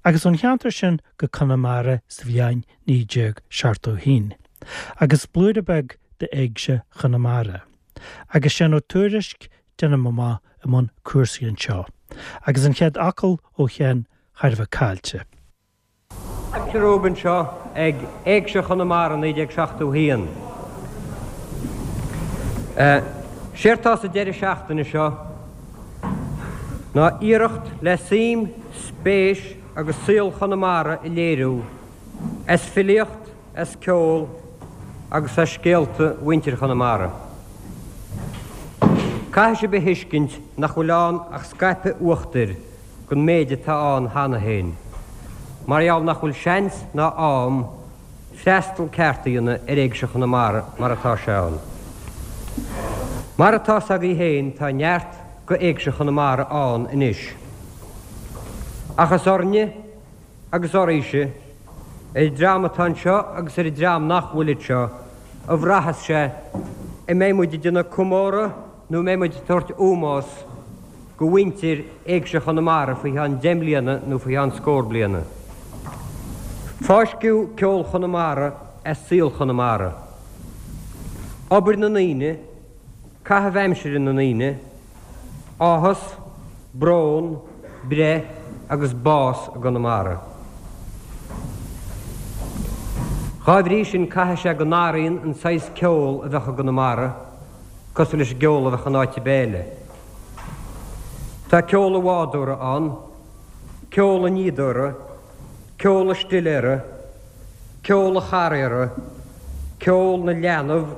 Agus ón cheantar sin go Conamara sa bhliain 1971. Agus blúire beag d'Éigse Chonamara. Agus Seán Ó Tuairisg, déanaim amach, i mbun cúrsaí anseo. Agus an chéad fhocal ó Sheán thar a bheith caillte. Fáilte romhaibh anseo ag Éigse Chonamara 1971. Séard tá sa deireadh seachtaine seo ná iarracht le suim, spéis agus saol Chonamara a léiriú as filíocht, as ceol agus as scéalta mhuintir Chonamara. Caithfidh sibh a thuiscint nach bhfuil ann ach scaipeadh uachtair den méid atá ann cheana féin, mar gheall nach bhfuil seans ná am freastal ceart a dhéanamh ar Éigse Chonamara mar atá sé ann. Mar atá 's agaibh féin tá neart go Éigse Chonamara ann anois. Ach is orainne agus oraibhse, ar an dream atá anseo agus ar an dream nach bhfuil anseo, a bhraitheas sé an mbeidh muid ag déanamh comóradh nó an mbeidh muid ag tabhairt ómós go mhuintir Éigse Chonamara faoi cheann deich mbliana nó faoi cheann scór bliana. Fáisceadh ceol Chonamara as saol Chonamara. Obair na ndaoine, caitheamh aimsire na ndaoine, áthas, brón, breith agus bás i gConamara. Dhá bhrí sin caithfidh sé go n-athraíonn an saghas ceol a bheadh i gConamara cosúil leis an gceol a bheadh in áit ar bith eile. Tá ceol an bhádóra ann, ceol an fhíodóra, ceol an stiléara, ceol an charraera, ceol na leanbh,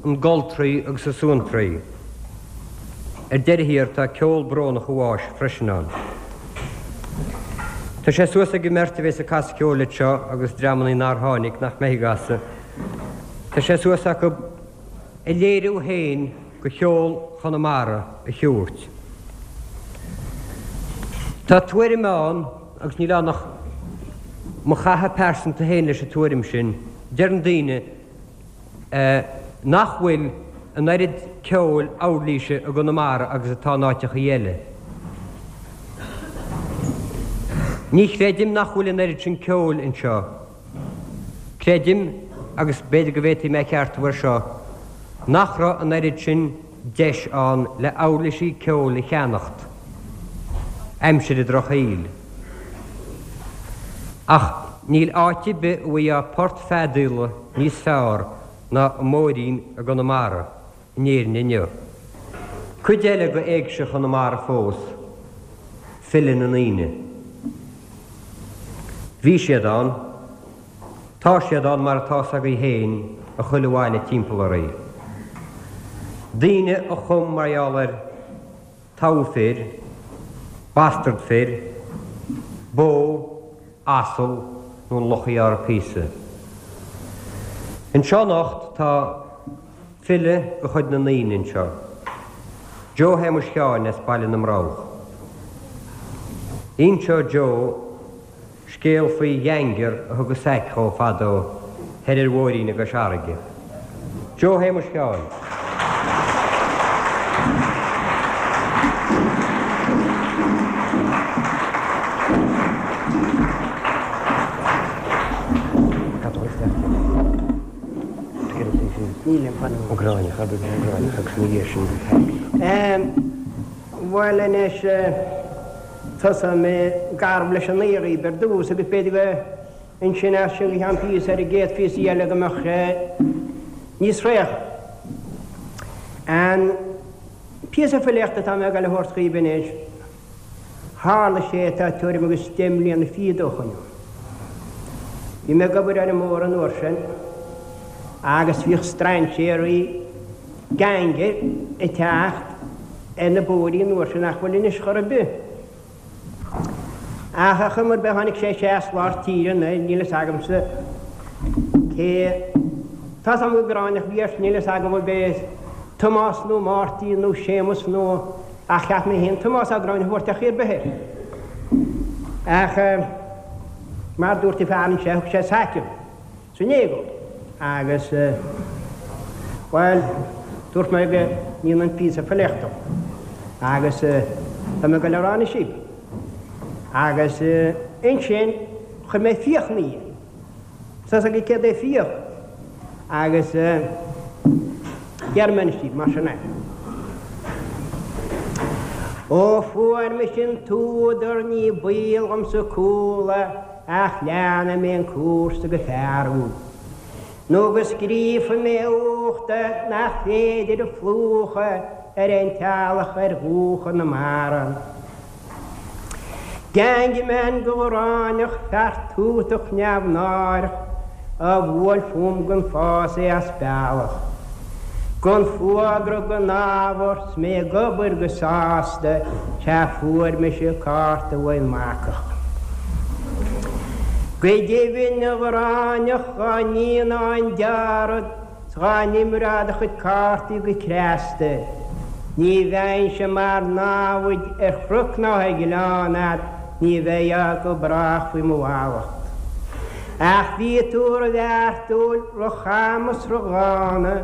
na goltraí agus na suantraí. Ar deireadh thiar tá ceol brónach an bháis freisin ann. Tá sé suas ag an mbeirt a bhéas ag casadh ceoil anseo agus dreamannaí nár tháinig, nach mbeidh ag casadh. Tá sé suas acu a léiriú féin go cheol Chonamara a thiúirt. Tá tuairim ann, agus níl ann ach mo chaitheamh pearsanta féin leis an tuairim sin, deireann daoine nach bhfuil an oiread ceoil uirlíse i gConamara agus atá in áiteachaí eile. Ní chreidim nach bhfuil an oiread sin ceoil anseo. Creidim, agus b'fhéidir go bhféadfaidh mé a cheartú air seo, nach raibh an oiread sin deis ann le uirlisí ceoil a cheannacht aimsir an drochshaoil. Ach níl áit ar bith a bhfaighfeá port feadaíola níos fearr ná an Móirín i gConamara in Éirinn inniu. Cuid eile go Éigse Chonamara fós, file na ndaoine. Bhí siad ann. Tá siad ann mar atá 's agaibh féin i chuile bhaile timpeall oraibh. Daoine a chum mar gheall ar togha fir, bastard fir, bó, asal nó an luch a ghearr píosa. Anseo anocht tá file de chuid na ndaoine anseo, Joe Shéamuis Sheáin as Baile na mBroghach. Inseoidh Joe scéal faoi gheaingear a thug an saic dhó fadó thoir ar Mhóirín i gCois Fharraige. Joe Shéamuis Sheáin. Bhuel anois, tosóidh mé garbh leis an aoi dhaoibh ar dtús agus b'fhéidir go ansin as sin go ceann píosa ar an gcéad phíosa eile go mbeadh sé níos réidhe. An píosa filíochta atá mé ag dul a thabhairt dhaoibh anois, Tharla sé tá tuairim agus deich mbliana fichead ó shoin. Bhí mé ag obair ar an mbóthar an uair sin agus bhíodh strainséirí, geaingir, ag teacht ar na bóithrí an uair sin nach bhfuil anois chor ar bith. Ach ar chuma ar bith tháinig sé isteach as lár tíre anoir, níl fhios agamsa cé, tá's agam gur Gráinneach a bhí air, níl fhios agam ab é Tomás nó Máirtín nó Séamus nó. Ach cheap mé féin Tomás Ó Gráinne a thabhairt ar chaoi ar bith air. Ach mar dúirt an fear anseo, thug sé saic dom san éagóir. Agus, bhuel, dúirt mé go ndéanfainn píosa filíochta dó. Agus tá mé ag dul a rá anois daoibh. Agus. Ansin chuir mé fiach ina dhiaidh. Tá 'fhios agaibh céard é fiach? Agus déarfaidh mé anois daoibh, mar sin é. Ó fuair mise an t-údar ní baol dhomsa cúla ach leanfaidh mé an cúrsa go fearúil. Nó go scríobhfaidh mé uachta nach féidir a phlúchadh ar aon teallach ar dhúiche na mara. Gangman de Ghráinneach, fear tútach neamhnáireach, a bhuail fúm gan fás é as bealach. Gan fuagra gan ábhar 's mé ag obair go sásta, sea fuair mise cárta uaidh an mbacach. Go deimhin a Ghráinneach dhá ndéanfá an dearad 's dhá n-imreofá do chuid cártaí go cneasta, ní bheinnse mar namhaid ar chnoc ná ar ghleann a'd, ní bheifeá go brách faoi mo mhallacht. Ach bhí tú ro-bheartúil, ro-cham is ro-dhána,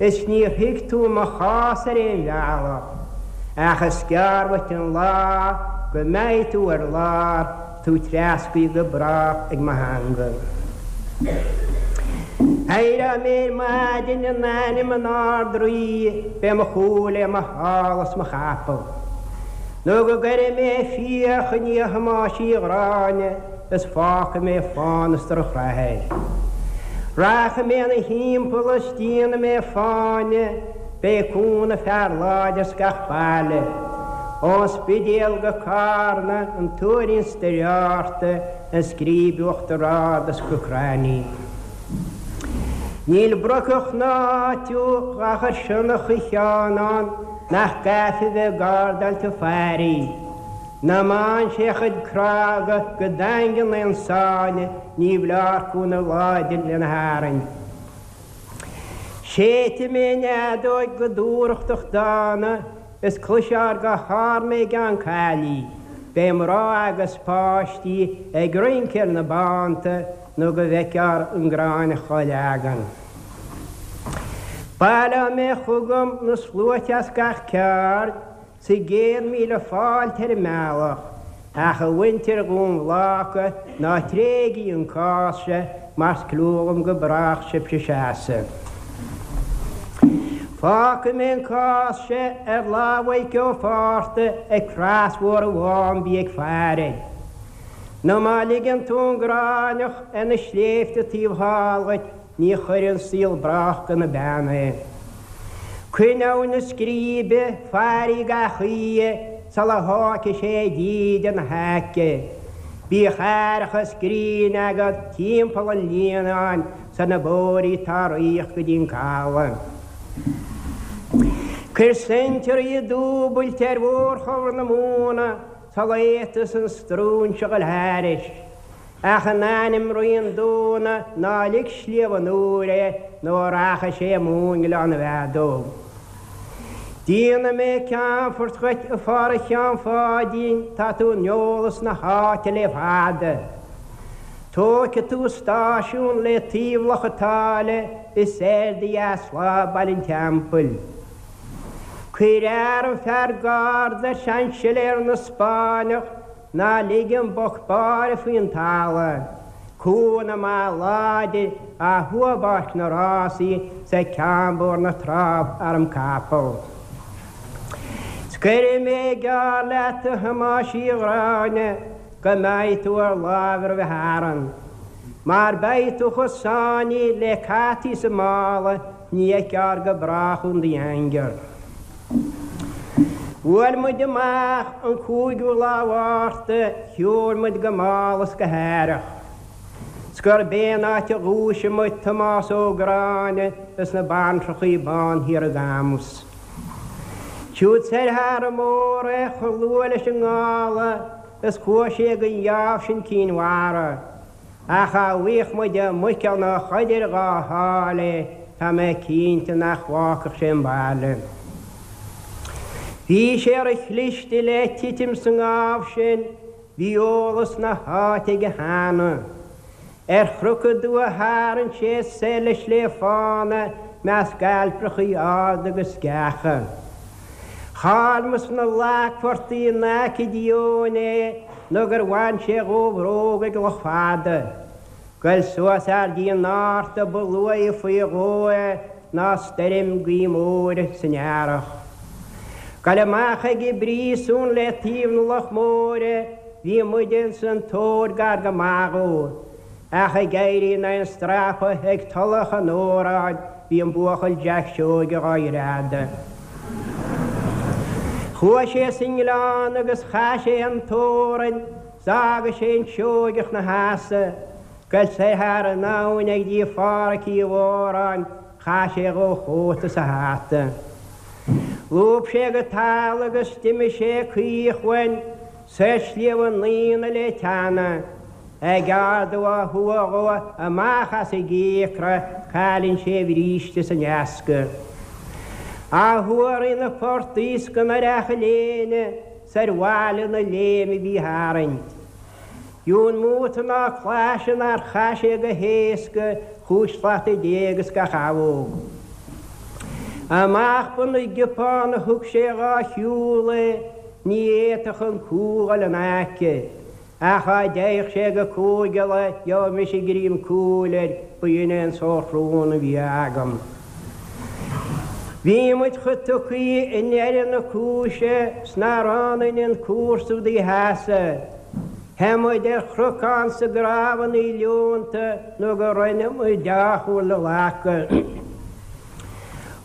is níor thuig tú mo chás ar aon bhealach, ach is gearr uait an lá go mbeidh tú ar lár, tú treascaithe go brách ag mo theanga. Éireoidh mé ar maidin in ainm an Ard-Rí, beidh mo chú le mo shála is mo chapall. Nó go gcuirfidh mé fiach i ndiaidh Thomáis Uí Ghráinne is fágfaidh mé fána is drochrath air. Rachaidh mé ina thimpeall is déanfaidh mé fáinne, beidh cúnamh fear láidir 's gach baile. Ón Spidéal go Cárna, an Tuairín 's Doire Fhatharta, an Scríb Uachtar Ard is go Croithlí. Níl brocach ná áit dhá chur sionnach Uí Sheáin ann nach gcaithfí bheith ag gardáil tigh Phaidí. Ná maíonn sé a chuid crága go daingean aon sáinne ní bhleár cúnamh láidir lena tharraingt. Séidfidh mé an fheadóig go dúthrachtach dána is cloisfear go hArainn mé i gCeann Caillí. Beidh mná agus páistí ag rince ar na bánta nó go bhfeicfear an Gráinneach á leagan. Baileoidh mé chugam na sluaite as gach ceard 's a gcéad míle fáilte ar an mbealach, ach a mhuintir Dhún Bhláca, ná tréigí an cás seo mar 's clú dhom go brách sibhse seasamh. Fágfaidh mé an cás seo ar lámh Mhaidhc Ó Fátharta ag Crois Mhór an Mhám bí ag faire air. Nó má ligeann tú an Gráinneach ar na sléibhte taobh thall dhuit, Ní chuireann saol brách go na beanna é. Coinneoidh na scríbe fairí gach oíche sula thógfaidh sé díde ina haice. Bíodh aireachas grinn agat timpeall an líonáin 's ar na bóithrí atá ag rith go dtí an caladh. Cuir seintirí dúbailte ar mhórchobhar na móna sula bhféadfas an stróinse dhul thairis. Ach in ainm Rí an Dúna ná lig Sliabh an Iúir é nó rachaidh sé amú i nGleann na bhFeadóg. Déanfaidh mé ceannfort dhuit a Pháraic Sheáin Pháidín, tá tú in eolas na háite le fada. Tógfaidh tú stáisiún le taobh Loch a' tSáile is ar do dheasláimh Baile an Teampaill. Cuir arm fear garda ar Seainsiléar na Spáinneach Ná lig an boc báire faoin talamh, cúnamh maith láidir á thua i bPáirc na Rásaí 's ag Ceann Bóthar na Trá arm capall. 'S cuirfidh mé geall leat a Thomáis Uí Ghráinne go mbeidh tú ar láimh roimhe Arann. Mar beidh tú chomh sáinnithe le cataí sa mála ní fheicfear go brách thú in do dhaingear. Bhuail muid amach an cúigiú lá Mhárta, shiúil muid go mall is go haireach. 'S gurb é an áit a dhúisigh muid Tomás Ó Gráinne is na baintreachaí bán thiar i gCamus. Siúd soir thar an mbóthar é chomh luath leis an ngála is chuaigh sé gon gheábh sin Cinn Mhara. Ach dá bhfaigheadh muid i Muiceall nó Chuidir dhá sháil é, tá mé cinnte nach bhfágfadh sé an baile. Bhí sé ro-chliste le titim sa ngábh sin, bhí eolas na háite aige cheana. Ar chnoc aduaidh a tharraing sé soir le Sliabh Fána measc ailpreachaí arda agus sceacha. Chaill muid sna lagphortaigh in aice Díóin é. Nó gur bhain sé dhó a bhróg ag Loch Fada. Goil suas thar dtí an Fhárta ba luaithe faoi dhó é ná stoirm gaoth móire san earrach. Goil amach ag an bpríosún le taobh na Loch Móire bhí muide ins an tóir gar go maith dhó. Ach ag éirí in aghaidh an strapa ag Tulach an Óráin bhí an buachaill Jack Seoige dhá ghreadadh. Chuaigh sé sa ngleann agus chaith sé an Tórainn 's d'fhága sé an Seoigeach 'na sheasamh. Goil soir thar an abhainn ag dtí Phádraic Uí Mhóráin chaith sé dhó a chóta 's a hata. Lúb sé go talamh agus d'imigh sé caoch uainn soir Sliabh an Aonaigh le teannadh. Ag ardú á thua dhó amach as an gcíocra cailleann sé a bhríste 's an easca. Á thua thrí na portaigh 's go n-oirfeadh a léine 's ar bhaile na léime bhí tharraingt. Dún múta ná claise nár chaith sé go héasca chúig shlata déag is gach abhóg. Amach Bun na gCiopán a thug sé dhá shiúl é, ní fhéadfadh an cú dhul in aice. Ach dá dtéadh sé go Cúige Uladh gheobhadh mise greim cúil air, ba shin é an sórt rún a bhí agam. Bhí muid chomh tugthaí i ndeireadh na cúise 's nár fhan ionainn an cúrsa údaí sheasamh. Theith muid ar chnocán 's i gcrámhannaí leonta nó go rinne muid deá-chúl le glacadh.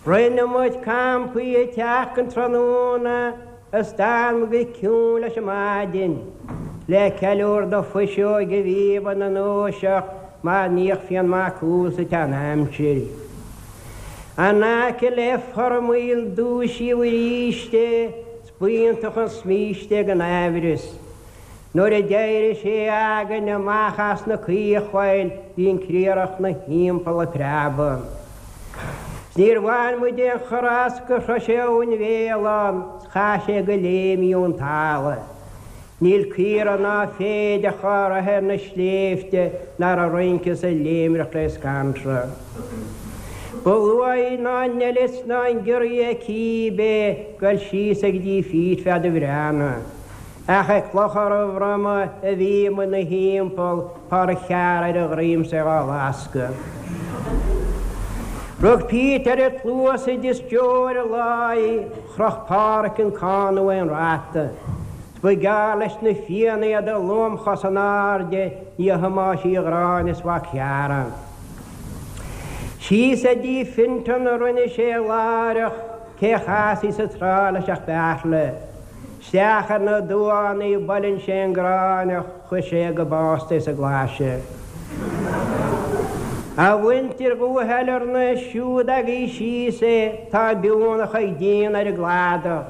Rinne muid campaí ag teacht an tráthnóna Is d'fhan muid go ciúin leis an maidin, le ceiliúr do fuiseoig a bhí ina ndúiseacht mar níodh Fionn Mac Cumhaill sa tsean-aimsir. In aice le Formaoil dúisíodh arís é 's b'iontach an smíste ag an aimhreas. Nuair a d'éirigh sé againn amach as na caochphoill bhí an criathrach 'na thimpeall ag preabadh. 'S níor bhain muid aon chor as gur shroich sé Abhainn Bhéalán 's chaith sé go léim í ón talamh. Níl caora ná féideach dhá raibh ar na sléibhte ná raibh rince is ag léimreach le scanradh. Ba luaithe ná an eilit ná an giorria cíbé goil síos ag dtí Pete feadh do bhreathnaigh. Ach ag Clochar an Bhroma a bhí muid 'na thimpeall, Páraic Chearra ar a dhroim 's é dhá lascadh. Rug Pete ar a chluasaibh is deoir i láí, chroch Páraic an cána ón rata. 'S ba ghearr leis na Fianna iad a lomchos in airde i ndiaidh Thomáis Uí Ghráinne is mhac Chearra. Síos ag dtí Fintan a rinne sé láithreach, cé chasfaí sa trá leis ach Beartla. Isteach ar na duánaí buaileann sé an Gráinneach, chuir sé go básta é sa gclaise. A mhuintir Dhumha Shailearna, siúd agaibh síos é, tá biúnach ag déanamh ar an gcladach.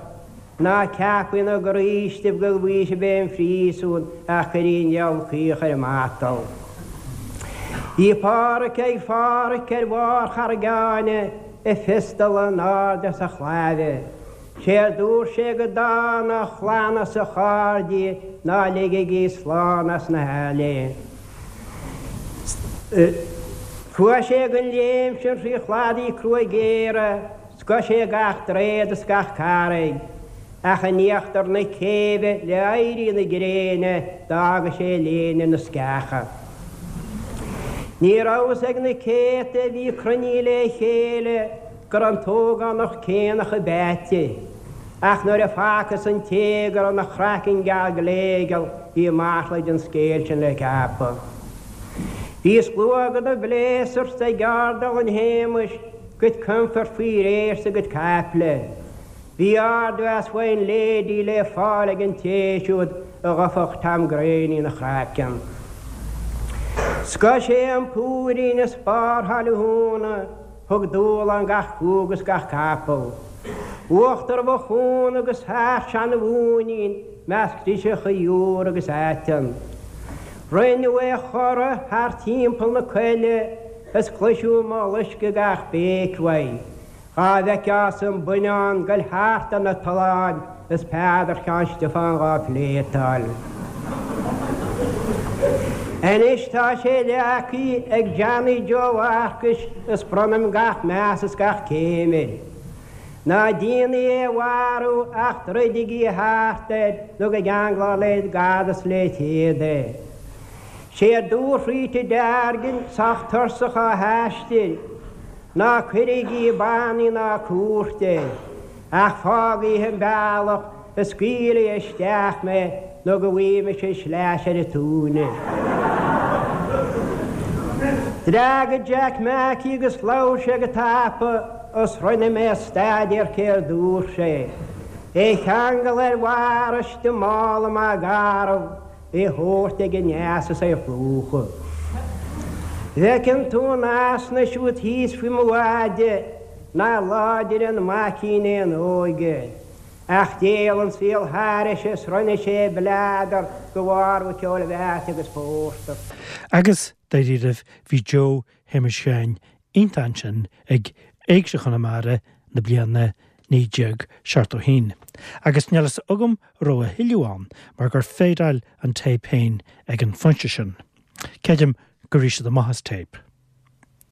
Ná ceapaigí ina gcroístibh go bhfaighidh sibh é ón phríosún ach cuiridh an diabhal caoch ar an matal. Bhí Páraic ag Pháraic ar bharr Charraig Áine, a phiostal in airde as a chláimhe. Sé a dúirt sé go dána a chlann is a chairde ná ligigí slán as na haille. Chuaigh sé den léim sin thrí chladaí crua géara, scoith sé gach droichead is gach carraig, ach in íochtar na céibhe le éirí na gréine d'fhága sé a léine na sceacha. Ní rabhas ag na céadta a bhí cruinnithe le chéile go raibh an t-ógánach céanna chomh beaite, ach nuair a facthas an té go raibh 'na chraiceann geal gléigeal bhí masla den scéal sin le ceapadh. Bhí slua de na bpléasúir ag Ardal an Shéamais, gcuid coimfeart faoi réir 's a gcuid caiple. Bhí ardmheas Fine Lady le fáil ag an té siúd a ghoidfeadh Tom Graney ina chraiceann. Scoith sé an púirín is barr Thaile Thúna. Thug dúshlán gach cú agus gach capall. Uachtar Mhochúna agus thar Seana-Mhóinín measc driseacha iúr agus aiteann. Rinneadh é a chorradh thar timpeall na coille is cloiseadh mollaisc ag gach béic uaidh. Dhá bhfeiceá-sa an buinneán goil thart ar na tolláin is Peadar Sheáin Stiofáin dhá phléatáil. Anois tá sé leagtha ag Johnny Joe Mharcais is bronnaim gach meas is gach céim air. Ná déanaigí é a mharú ach druidigí thart air nó go gceanglófar le gad is le téad é. Séard dúirt Rita Deargan sách tuirseach á haistir, Ná cuirigí bannaí ná cúirt air, ach fágaigí an bealach is scaoiligí isteach mé nó go bhfaighidh mise sleais ar an tóin. D'fhreagair Jack Mackey agus labhair sé go tapa is rinne mé staidéar céard dúirt sé. É a cheangal ar bharr istigh i mála maith garbh, é a thabhairt ag an eas is é a phlúchadh. Bhfeiceann tú an easna siúd thíos faoi mo mhaide nár láidir an maicín é an óige. Ach d'éalaigh an saol thairis is rinne sé bleadar de bharr ceoil mheáite agus phórtar. Agus, dáiríribh, bhí Joe Shéamuis Sheáin iontach ansin ag Éigse Chonamara na bliana 1971. Agus níl fhios agam an raibh a thuilleadh ann mar gur phéideáil an téip féin ag an phointe sin. Creidim gur rith siad amach as téip.